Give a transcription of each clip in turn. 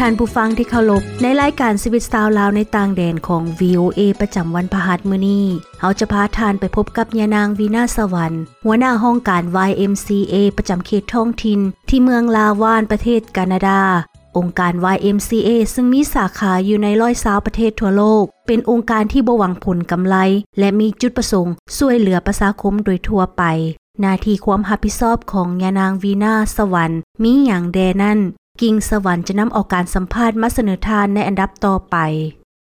ທ່ານຜູ້ຟັງທີ່ເຄົາລົບ, ໃນລາຍການຊີວິດຊາວລາວໃນຕ່າງແດນຂອງ ວີໂອເອ ປະຈຳວັນພະຫັດມື້ນີ້, ເຮົາຈະພາທ່ານໄປພົບກັບຍານາງ ວີນາ ສະຫວັນ, ຫົວໜ້າຫ້ອງການ ວາຍເອັມຊີເອ ປະຈຳເຂດທ້ອງຖິ່ນ ທີ່ເມືອງລາວານ ປະເທດການາດາ. ອົງການ ວາຍເອັມຊີເອ ຊຶ່ງມີສາຂາຢູ່ໃນຮ້ອຍຊາວປະເທດທົ່ວໂລກ, ເປັນອົງການທີ່ບໍ່ຫວັງຜົນກຳໄລ ແລະ ມີຈຸດປະສົງຊ່ວຍເຫຼືອປະຊາຄົມໂດຍທົ່ວໄປ. ໜ້າທີ່ຄວາມຮັບຜິດຊອບຂອງຍານາງ ວີນາ ສະຫວັນ ມີຫຍັງແດ່ນັ້ນ? ກິ່ງສະຫວັນຈະນຳເອົາການສຳພາດມາສະເໜີທ່ານໃນອັນດັບຕໍ່ໄປ.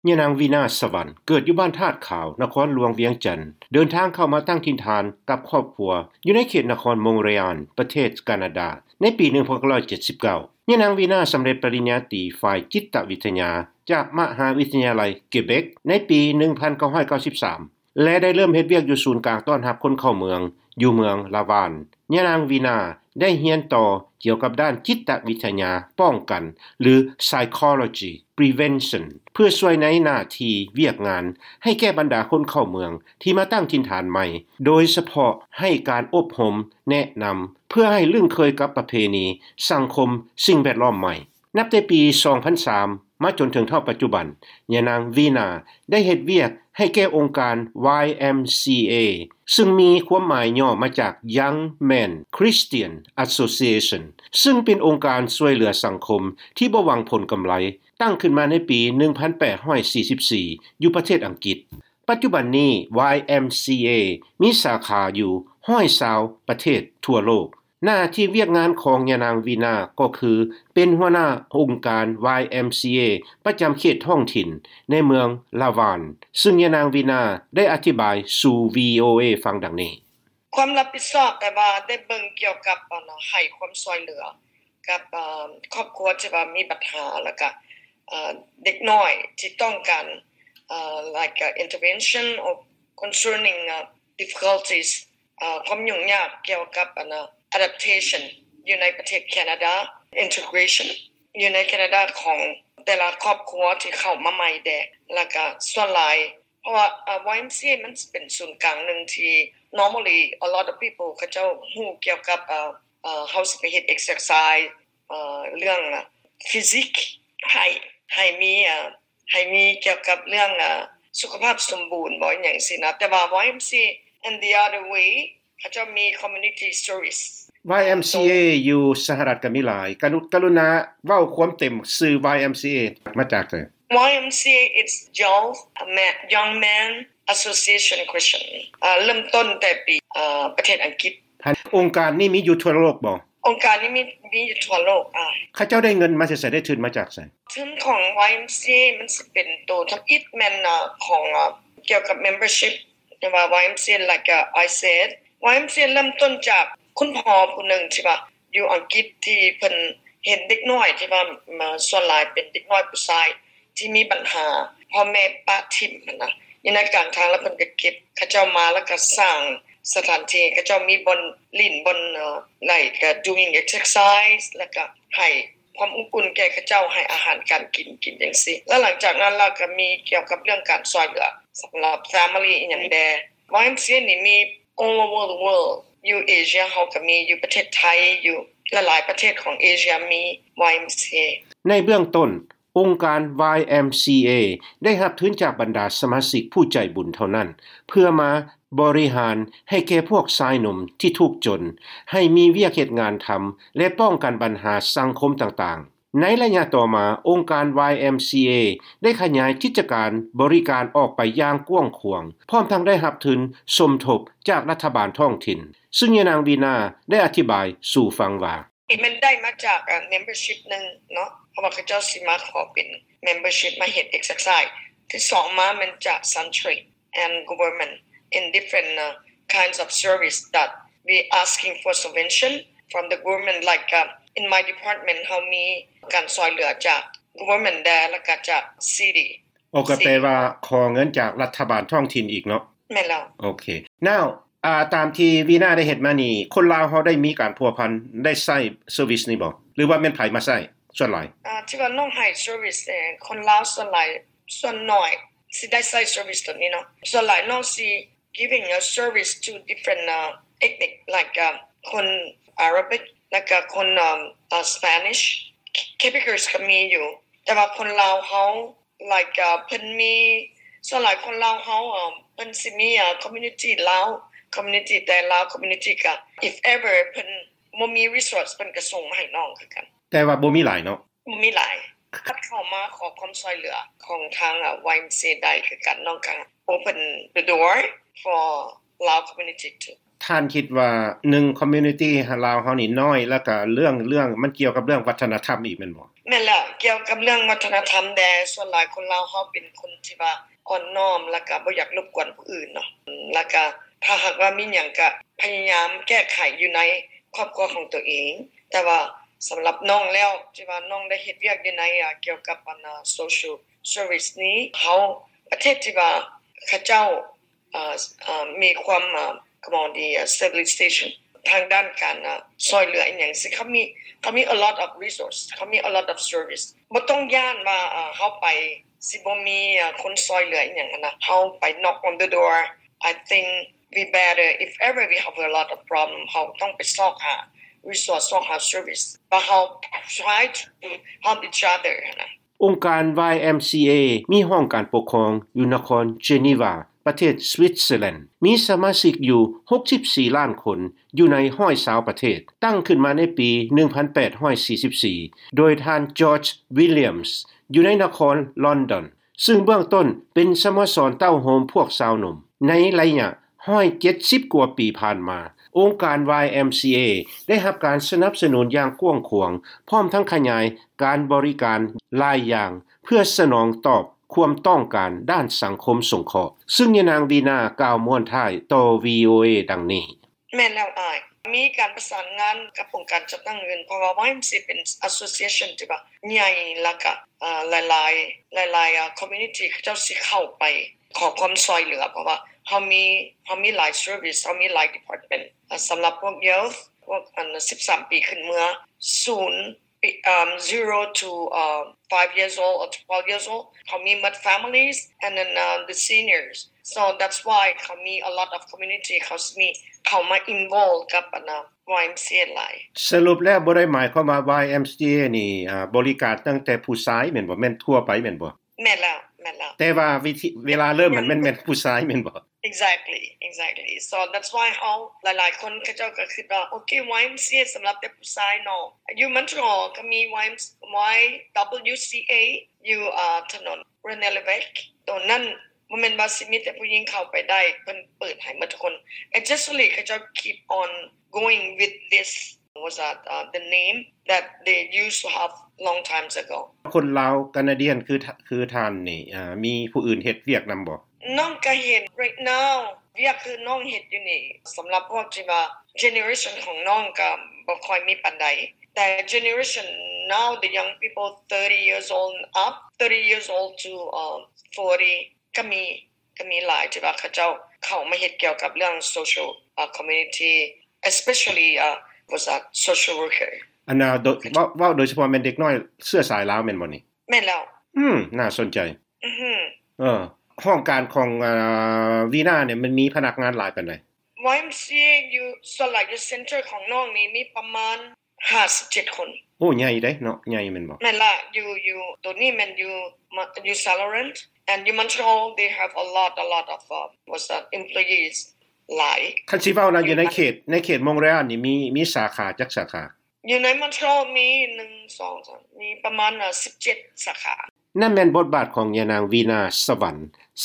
ຍານາງ ວີນາ ສະຫວັນ ເກີດຢູ່ບ້ານທາດຂາວ, ນະຄອນຫຼວງວຽງຈັນ, ເດີນທາງເຂົ້າມາຕັ້ງຖິ່ນຖານກັບຄອບຄົວຢູ່ໃນເຂດນະຄອນມົງເຣອານ ປະເທດການາດາ ໃນປີໜຶ່ງພັນເກົ້າຮ້ອຍເຈັດສິບເກົ້າ. ຍານາງ ວີນາ ສຳເລັດປະລິນຍາຕີຝ່າຍຈິດຕະວິທະຍາຈາກມະຫາວິທະຍາໄລເກເບັກໃນປີໜຶ່ງພັນເກົ້າຮ້ອຍເກົ້າສິບສາມ ແລະ ໄດ້ເລີ່ມເຮັດວຽກຢູ່ສູນກາງຕ້ອນຮັບຄົນເຂົ້າເມືອງຢູ່ເມືອງລາວານ. ຍານາງ ວີນາ ໄດ້ຮຽນຕໍ່ກ່ຽວກັບດ້ານຈິດຕະວິທະຍາປ້ອງກັນ ຫຼື psychology prevention ເພື່ອຊ່ວຍໃນໜ້າທີ່ວຽກງານໃຫ້ແກ່ບັນດາຄົນເຂົ້າເມືອງທີ່ມາຕັ້ງຖິ່ນຖານໃໝ່, ໂດຍສະເພາະໃຫ້ການອົບຮົມ, ແນະນຳ ເພື່ອໃຫ້ລຶ້ງເຄີຍກັບປະເພນີ, ສັງຄົມ, ສິ່ງແວດລ້ອມໃໝ່. ນັບແຕ່ປີສອງພັນສາມມາຈົນເຖິງເທົ່າປັດຈຸບັນ, ຍານາງ ວີນາ ໄດ້ເຮັດວຽກໃຫ້ແກ່ອົງການ ວາຍເອັມຊີເອ ຊຶ່ງມີຄວາມໝາຍຫຍໍ້ມາຈາກ Young Men Christian Association ຊຶ່ງເປັນອົງການຊ່ວຍເຫຼືອສັງຄົມທີ່ບໍ່ຫວັງຜົນກຳໄລ, ຕັ້ງຂຶ້ນມາໃນປີໜຶ່ງພັນແປດຮ້ອຍສີ່ສິບສີ່ ຢູ່ປະເທດອັງກິດ. ປັດຈຸບັນນີ້ ວາຍເອັມຊີເອ ມີສາຂາຢູ່ຮ້ອຍຊາວປະເທດທົ່ວໂລກ. ໜ້າທີ່ວຽກງານຂອງຍານາງ ວີນາ ກໍຄືເປັນຫົວໜ້າອົງການ ວາຍເອັມຊີເອ ປະຈຳເຂດທ້ອງຖິ່ນໃນເມືອງລາວານ, ຊຶ່ງຍານາງ ວີນາ ໄດ້ອະທິບາຍສູ່ ວີໂອເອ ຟັງດັ່ງນີ້. ຄວາມຮັບຜິດຊອບແປວ່າໄດ້ເບິ່ງກ່ຽວກັບ ອັນ ໃຫ້ຄວາມຊ່ວຍເຫຼືອກັບ ເອີ່ ຄອບຄົວທີ່ວ່າມີບັນຫາ ແລ້ວກະ ເອີ່ ເດັກນ້ອຍທີ່ຕ້ອງການ ເອີ່ like intervention or concerning difficulties ເອີ່ ຄວາມຫຍຸ້ງຍາກກ່ຽວກັບ ອັນ adaptation ຢູ່ໃນປະເທດແຄນາດາ, integration ຢູ່ໃນແຄນາດາຂອງແຕ່ລະຄອບຄົວທີ່ເຂົ້າມາໃໝ່ແດ່ ແລ້ວກະສ່ວນຫຼາຍ ເພາະວ່າ ເອີ່ ວາຍເອັມຊີເອ ມັນເປັນສູນກາງໜຶ່ງທີ່ normally a lot of people ເຂົາເຈົ້າຮູ້ກ່ຽວກັບ ເອີ່ ເອີ່ ເຮົາຊິໄປເຮັດ exercise ເອີ່ ເລື່ອງ physique ໃຫ້ ໃຫ້ມີ ເອີ່ ໃຫ້ມີກ່ຽວກັບເລື່ອງ ເອີ່ ສຸຂະພາບສົມບູນບໍ ອີ່ຫຍັງຊີ້ນະ. ແຕ່ວ່າ ວາຍເອັມຊີເອ in the other way ເຂົາເຈົ້າມີ community service ວາຍເອັມຊີເອ ຢູ່ສະຫະລັດກໍມີຫຼາຍ. ກະລຸ ກະລຸນາເວົ້າຄວາມເຕັມຊື່ ວາຍເອັມຊີເອ ມາຈາກໃສ? ວາຍເອັມຊີເອ it's Young Men, Young Men Association Christian ເອີ່ ເລີ່ມຕົ້ນແຕ່ປີ ເອີ່ ປະເທດອັງກິດ. ອົງການນີ້ມີຢູ່ທົ່ວໂລກບໍ? ອົງການນີ້ມີ ມີຢູ່ທົ່ວໂລກ. ອ່າ ເຂົາເຈົ້າໄດ້ເງິນມາແຕ່ໃສ? ໄດ້ທຶນມາຈາກໃສ? ທຶນຂອງ ວາຍເອັມຊີເອ ມັນຊິເປັນໂຕທຳອິດແມ່ນ ເອີ່ ຂອງ ເອີ່ ກ່ຽວກັບ membership ແຕ່ວ່າ ວາຍເອັມຊີເອ like I said ວາຍເອັມຊີເອ ເລີ່ມຕົ້ນຈາກຄຸນພໍ່ຜູ້ໜຶ່ງທີ່ວ່າຢູ່ອັງກິດ ທີ່ເພິ່ນເຫັນເດັກນ້ອຍທີ່ວ່າ ເອີ່ ສ່ວນຫຼາຍເປັນເດັກນ້ອຍຜູ້ຊາຍ ທີ່ມີບັນຫາພໍ່ແມ່ປະຖິ້ມຫັ້ນນະ ຢູ່ໃນກາງທາງ ແລ້ວເພິ່ນກໍເກັບເຂົາເຈົ້າມາ ແລ້ວກໍສ້າງສະຖານທີ່ ເຂົາເຈົ້າມີບ່ອນຫຼິ້ນ ບ່ອນ like doing exercise ແລ້ວກໍໃຫ້ຄວາມອົບອຸ່ນແກ່ເຂົາເຈົ້າ ໃຫ້ອາຫານການກິນ ກິນຈັ່ງຊີ້. ແລ້ວຫຼັງຈາກນັ້ນລະກໍມີກ່ຽວກັບເລື່ອງການຊ່ວຍເຫຼືອສຳລັບ family ອີ່ຫຍັງແດ່. ວາຍເອັມຊີເອ ນີ້ມີ all over the world ຢູ່ເອເຊຍເຮົາກໍມີ ຢູ່ປະເທດໄທ ຢູ່ຫຼາຍໆປະເທດຂອງເອເຊຍມີ ວາຍເອັມຊີເອ. ໃນເບື້ອງຕົ້ນ ອົງການ ວາຍເອັມຊີເອ ໄດ້ຮັບທຶນຈາກບັນດາສະມາຊິກຜູ້ໃຈບຸນເທົ່ານັ້ນ ເພື່ອມາບໍລິຫານໃຫ້ແກ່ພວກຊາຍໜຸ່ມທີ່ທຸກຈົນ ໃຫ້ມີວຽກເຮັດງານທຳ ແລະ ປ້ອງກັນບັນຫາສັງຄົມຕ່າງໆ. ໃນໄລຍະຕໍ່ມາ, ອົງການ ວາຍເອັມຊີເອ ໄດ້ຂະຫຍາຍກິດຈະການບໍລິການອອກໄປຢ່າງກວ້າງຂວາງ, ພ້ອມທັງໄດ້ຮັບທຶນສົມທົບຈາກລັດຖະບານທ້ອງຖິ່ນ, ຊຶ່ງຍານາງ ວີນາ ໄດ້ອະທິບາຍສູ່ຟັງວ່າ, ມັນໄດ້ມາຈາກ ເອີ່ membership ໜຶ່ງເນາະ, ເພາະວ່າເຂົາເຈົ້າຊິມາຂໍເປັນ membership ມາເຮັດ exercise. ທີສອງມາແມ່ນຈາກ Sentry and government in different, uh, kinds of service that we asking for subvention from the government, like, uh, in my department ເຮົາມີການຊ່ວຍເຫຼືອຈາກ government ແດ່ ແລ້ວກໍຈາກ city. ໂອ ກໍແປວ່າຂໍເງິນຈາກລັດຖະບານທ້ອງຖິ່ນອີກເນາະ? ແມ່ນແລ້ວ. ໂອເຄ. Now, ອ່າ ຕາມທີ່ ວີນາ ໄດ້ເຮັດມານີ້ ຄົນລາວເຮົາໄດ້ມີການພົວພັນ ໄດ້ໃຊ້ service ນີ້ບໍ່ ຫຼືວ່າແມ່ນໃຜມາໃຊ້ສ່ວນຫຼາຍ? ອ່າ ທີ່ວ່ານ້ອງໃຫ້ service ເອີ ຄົນລາວສ່ວນຫຼາຍ ສ່ວນໜ້ອຍຊິໄດ້ໃຊ້ service ຕົວນີ້ເນາະ. ສ່ວນຫຼາຍນ້ອງຊິ giving a service to different, uh, ethnic, like, uh, ຄົນ Arabic ແລ້ວກໍຄົນ um, uh, Spanish Quebecers ກໍມີຢູ່ ແຕ່ວ່າຄົນລາວເຮົາ like ເພິ່ນມີ ສ່ວນຫຼາຍຄົນລາວເຮົາ ເພິ່ນຊິມີ community ລາວ community ແຕ່ລາວ community ກໍ if ever ເພິ່ນບໍ່ມີ resource ເພິ່ນກໍສົ່ງມາໃຫ້ນ້ອງຄືກັນ. ແຕ່ວ່າບໍ່ມີຫຼາຍເນາະ? ບໍ່ມີຫຼາຍ. ຄັນເຂົ້າມາຂໍຄວາມຊ່ວຍເຫຼືອຂອງທາງ YMCA ໄດ້ຄືກັນ ນ້ອງກໍ open the door for Lao community too. ທ່ານຄິດວ່າ ໜຶ່ງ community ລາວເຮົານີ້ນ້ອຍ ແລ້ວກະເລື່ອງ ເລື່ອງ ມັນກ່ຽວກັບເລື່ອງວັດທະນະທຳອີກແມ່ນບໍ່? ແມ່ນແລ້ວ ກ່ຽວກັບເລື່ອງວັດທະນະທຳແດ່ ສ່ວນຫຼາຍຄົນລາວເຮົາເປັນຄົນທີ່ວ່າອ່ອນນ້ອມ ແລ້ວກະບໍ່ຢາກລົບກວນຜູ້ອື່ນເນາະ ແລ້ວກະຖ້າຫາກວ່າມີຫຍັງກະພະຍາຍາມແກ້ໄຂຢູ່ໃນຄອບຄົວຂອງຕົວເອງ. ແຕ່ວ່າສຳລັບນ້ອງແລ້ວ ທີ່ວ່ານ້ອງໄດ້ເຮັດວຽກຢູ່ໃນ ອາ ກ່ຽວກັບອັນ social service ນີ້ ເຮົາ ປະເທດທີ່ວ່າເຂົາເຈົ້າ ເອີ ເອີ ມີຄວາມ ເອີ ຄວາມດີ civilization ທາງດ້ານການ ເອີ ຊ່ວຍເຫຼືອອີ່ຫຍັງຊີ້ ເຂົາມີ ເຂົາມີ a lot of resource ເຂົາມີ a lot of service ບໍ່ຕ້ອງຢ້ານວ່າ ເອີ ເຮົາໄປຊິບໍ່ມີ ເອີ ຄົນຊ່ວຍເຫຼືອອີ່ຫຍັງຫັ້ນນະ. ເຮົາໄປ knock on the door. I think we better, if ever we have a lot of problem, ເຮົາຕ້ອງໄປຊອກຫາ resource ຊອກຫາ service ວ່າເຮົາ try to help each other ຫັ້ນນະ. ອົງການ YMCA ມີຫ້ອງການປົກຄອງຢູ່ນະຄອນເຈນີວາ ປະເທດສະວິດເຊີແລນ, ມີສະມາຊິກຢູ່ຫົກສິບສີ່ລ້ານຄົນ ຢູ່ໃນຮ້ອຍຊາວປະເທດ, ຕັ້ງຂຶ້ນມາໃນປີໜຶ່ງພັນແປດຮ້ອຍສີ່ສິບສີ່ ໂດຍທ່ານ George Williams ຢູ່ໃນນະຄອນລອນດອນ, ຊຶ່ງເບື້ອງຕົ້ນເປັນສະໂມສອນເຕົ້າໂຮມພວກຊາວໜຸ່ມ. ໃນໄລຍະ ຮ້ອຍເຈັດສິບກວ່າປີຜ່ານມາ, ອົງການ ວາຍເອັມຊີເອ ໄດ້ຮັບການສະໜັບສະໜູນຢ່າງກວ້າງຂວາງ, ພ້ອມທັງຂະຫຍາຍການບໍລິການຫຼາຍຢ່າງ ເພື່ອສະໜອງຕອບຄວາມຕ້ອງການດ້ານສັງຄົມສົງເຄາະ, ຊຶ່ງຍານາງ ວີນາ ກ່າວມ້ວນທ້າຍຕໍ່ ວີໂອເອ ດັ່ງນີ້. ແມ່ນແລ້ວອ້າຍ, ມີການປະສານງານກັບອົງການຈັດຕັ້ງອື່ນ, ເພາະວ່າ ວາຍເອັມຊີເອ ເປັນ association ທີ່ວ່າໃຫຍ່ ແລ້ວກະ ເອີ ຫຼາຍໆ ຫຼາຍໆ ເອີ community ເຂົາເຈົ້າຊິເຂົ້າໄປ ຂໍຄວາມຊ່ວຍເຫຼືອ ເພາະວ່າເຮົາມີ ເຮົາມີຫຼາຍ service ເຮົາມີຫຼາຍ department ສຳລັບພວກ youth ພວກອັນສິບສາມປີຂຶ້ນເມືອ ສູນປີ ເອີ zero to five years old or twelve years old ເຮົາມີໝົດ families and then the seniors, so that's why ເຂົາມີ a lot of community ເຂົາຊິມີເຂົ້າມາ involve ກັບອັນ ວາຍເອັມຊີເອ ຫຼາຍ. ສະຫຼຸບແລ້ວບໍ່ໄດ້ໝາຍຄວາມວ່າ ວາຍເອັມຊີເອ ນີ້ ອາ ບໍລິການຕັ້ງແຕ່ຜູ້ຊາຍແມ່ນບໍ່? ແມ່ນທົ່ວໄປແມ່ນບໍ່? ແມ່ນແລ້ວ ແມ່ນແລ້ວ. ແຕ່ວ່າວິທີ ເວລາເລີ່ມມັນແມ່ນ ແມ່ນຜູ້ຊາຍແມ່ນບໍ່? Exactly, exactly. So that's why ເຮົາ ຫຼາຍໆຄົນເຂົາເຈົ້າກໍຄິດວ່າ ໂອເຄ ວາຍເອັມຊີເອ ສຳລັບແຕ່ຜູ້ຊາຍເນາະ. ຢູ່ Montreal ກໍມີ Y W C A ຢູ່ ອາ ຖະໜົນ René Lévesque ໂຕນັ້ນ ບໍ່ແມ່ນວ່າຊິມີແຕ່ຜູ້ຍິງເຂົ້າໄປໄດ້, ເພິ່ນເປີດໃຫ້ໝົດທຸກຄົນ. Actually ເຂົາເຈົ້າ keep on going with this, was that the name that they used to have long times ago. ຄົນລາວການາດຽນຄື ຄືທ່ານນີ້ ອາ ມີຜູ້ອື່ນເຮັດວຽກນຳບໍ່? ນ້ອງກະເຮັດ right now ວຽກຄືນ້ອງເຮັດຢູ່ນີ້ ສຳລັບພວກທີ່ວ່າ generation ຂອງນ້ອງກະບໍ່ຄ່ອຍມີປານໃດ, ແຕ່ generation now, the young people thirty years old and up, thirty years old to forty ກະມີ ກະມີຫຼາຍທີ່ວ່າເຂົາເຈົ້າເຂົ້າມາເຮັດກ່ຽວກັບເລື່ອງ social community, especially was a social worker. ອັນນ່າ ເວົ້າ ເວົ້າໂດຍສະເພາະແມ່ນເດັກນ້ອຍເຊື້ອສາຍລາວແມ່ນບໍ່ນີ້? ແມ່ນແລ້ວ. ອືມ ໜ້າສົນໃຈ. ອືຮຶ ເອີ ຫ້ອງການຂອງ ອາ ວີນານີ້ ມັນມີພະນັກງານຫຼາຍປານໃດ? ວາຍເອັມຊີເອ ຢູ່ ສ່ວນຫຼາຍຢູ່ center ຂອງນ້ອງນີ້ມີປະມານ ຫ້າສິບເຈັດຄົນ. ໂອ້ ໃຫຍ່ເດ້ເນາະ ໃຫຍ່ແມ່ນບໍ່? ແມ່ນລະ ຢູ່ ຢູ່ ໂຕນີ້ແມ່ນຢູ່ ຢູ່ St Laurent and ຢູ່ Montreal they have a lot, a lot of was that employees ຫຼາຍ. ຄັນຊິເວົ້ານະ ຢູ່ໃນເຂດ ໃນເຂດ Montreal ນີ້ມີ ມີສາຂາຈັກສາຂາ? ຢູ່ໃນ Montreal ມີ ໜຶ່ງ ສອງ ສາມ ມີປະມານສິບເຈັດສາຂາ. ນັ້ນແມ່ນບົດບາດຂອງຍານາງ ວີນາ ສະຫວັນ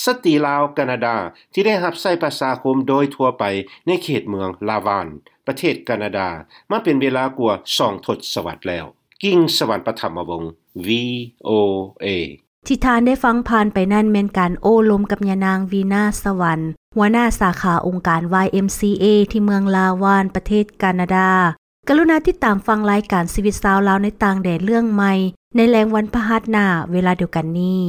ສະຕີລາວການາດາ ທີ່ໄດ້ຮັບໃຊ້ປະຊາຄົມໂດຍທົ່ວໄປໃນເຂດເມືອງລາວານ ປະເທດການາດາ ມາເປັນເວລາກວ່າສອງທົດສະວັດແລ້ວ. ກິ່ງສະຫວັນ ປະຖຳມະວົງ ວີໂອເອ. ທີ່ທ່ານໄດ້ຟັງຜ່ານໄປນັ້ນແມ່ນການໂອ້ລົມກັບຍານາງ ວີນາ ສະຫວັນ ຫົວໜ້າສາຂາອົງການ ວາຍເອັມຊີເອ ທີ່ເມືອງລາວານ ປະເທດການາດາ. ກະລຸນາຕິດຕາມຟັງລາຍການຊີວິດຊາວລາວໃນຕ່າງແດນເລື່ອງໃໝ່ ໃນແລງວັນພະຫັດໜ້າເວລາດຽວກັນນີ້.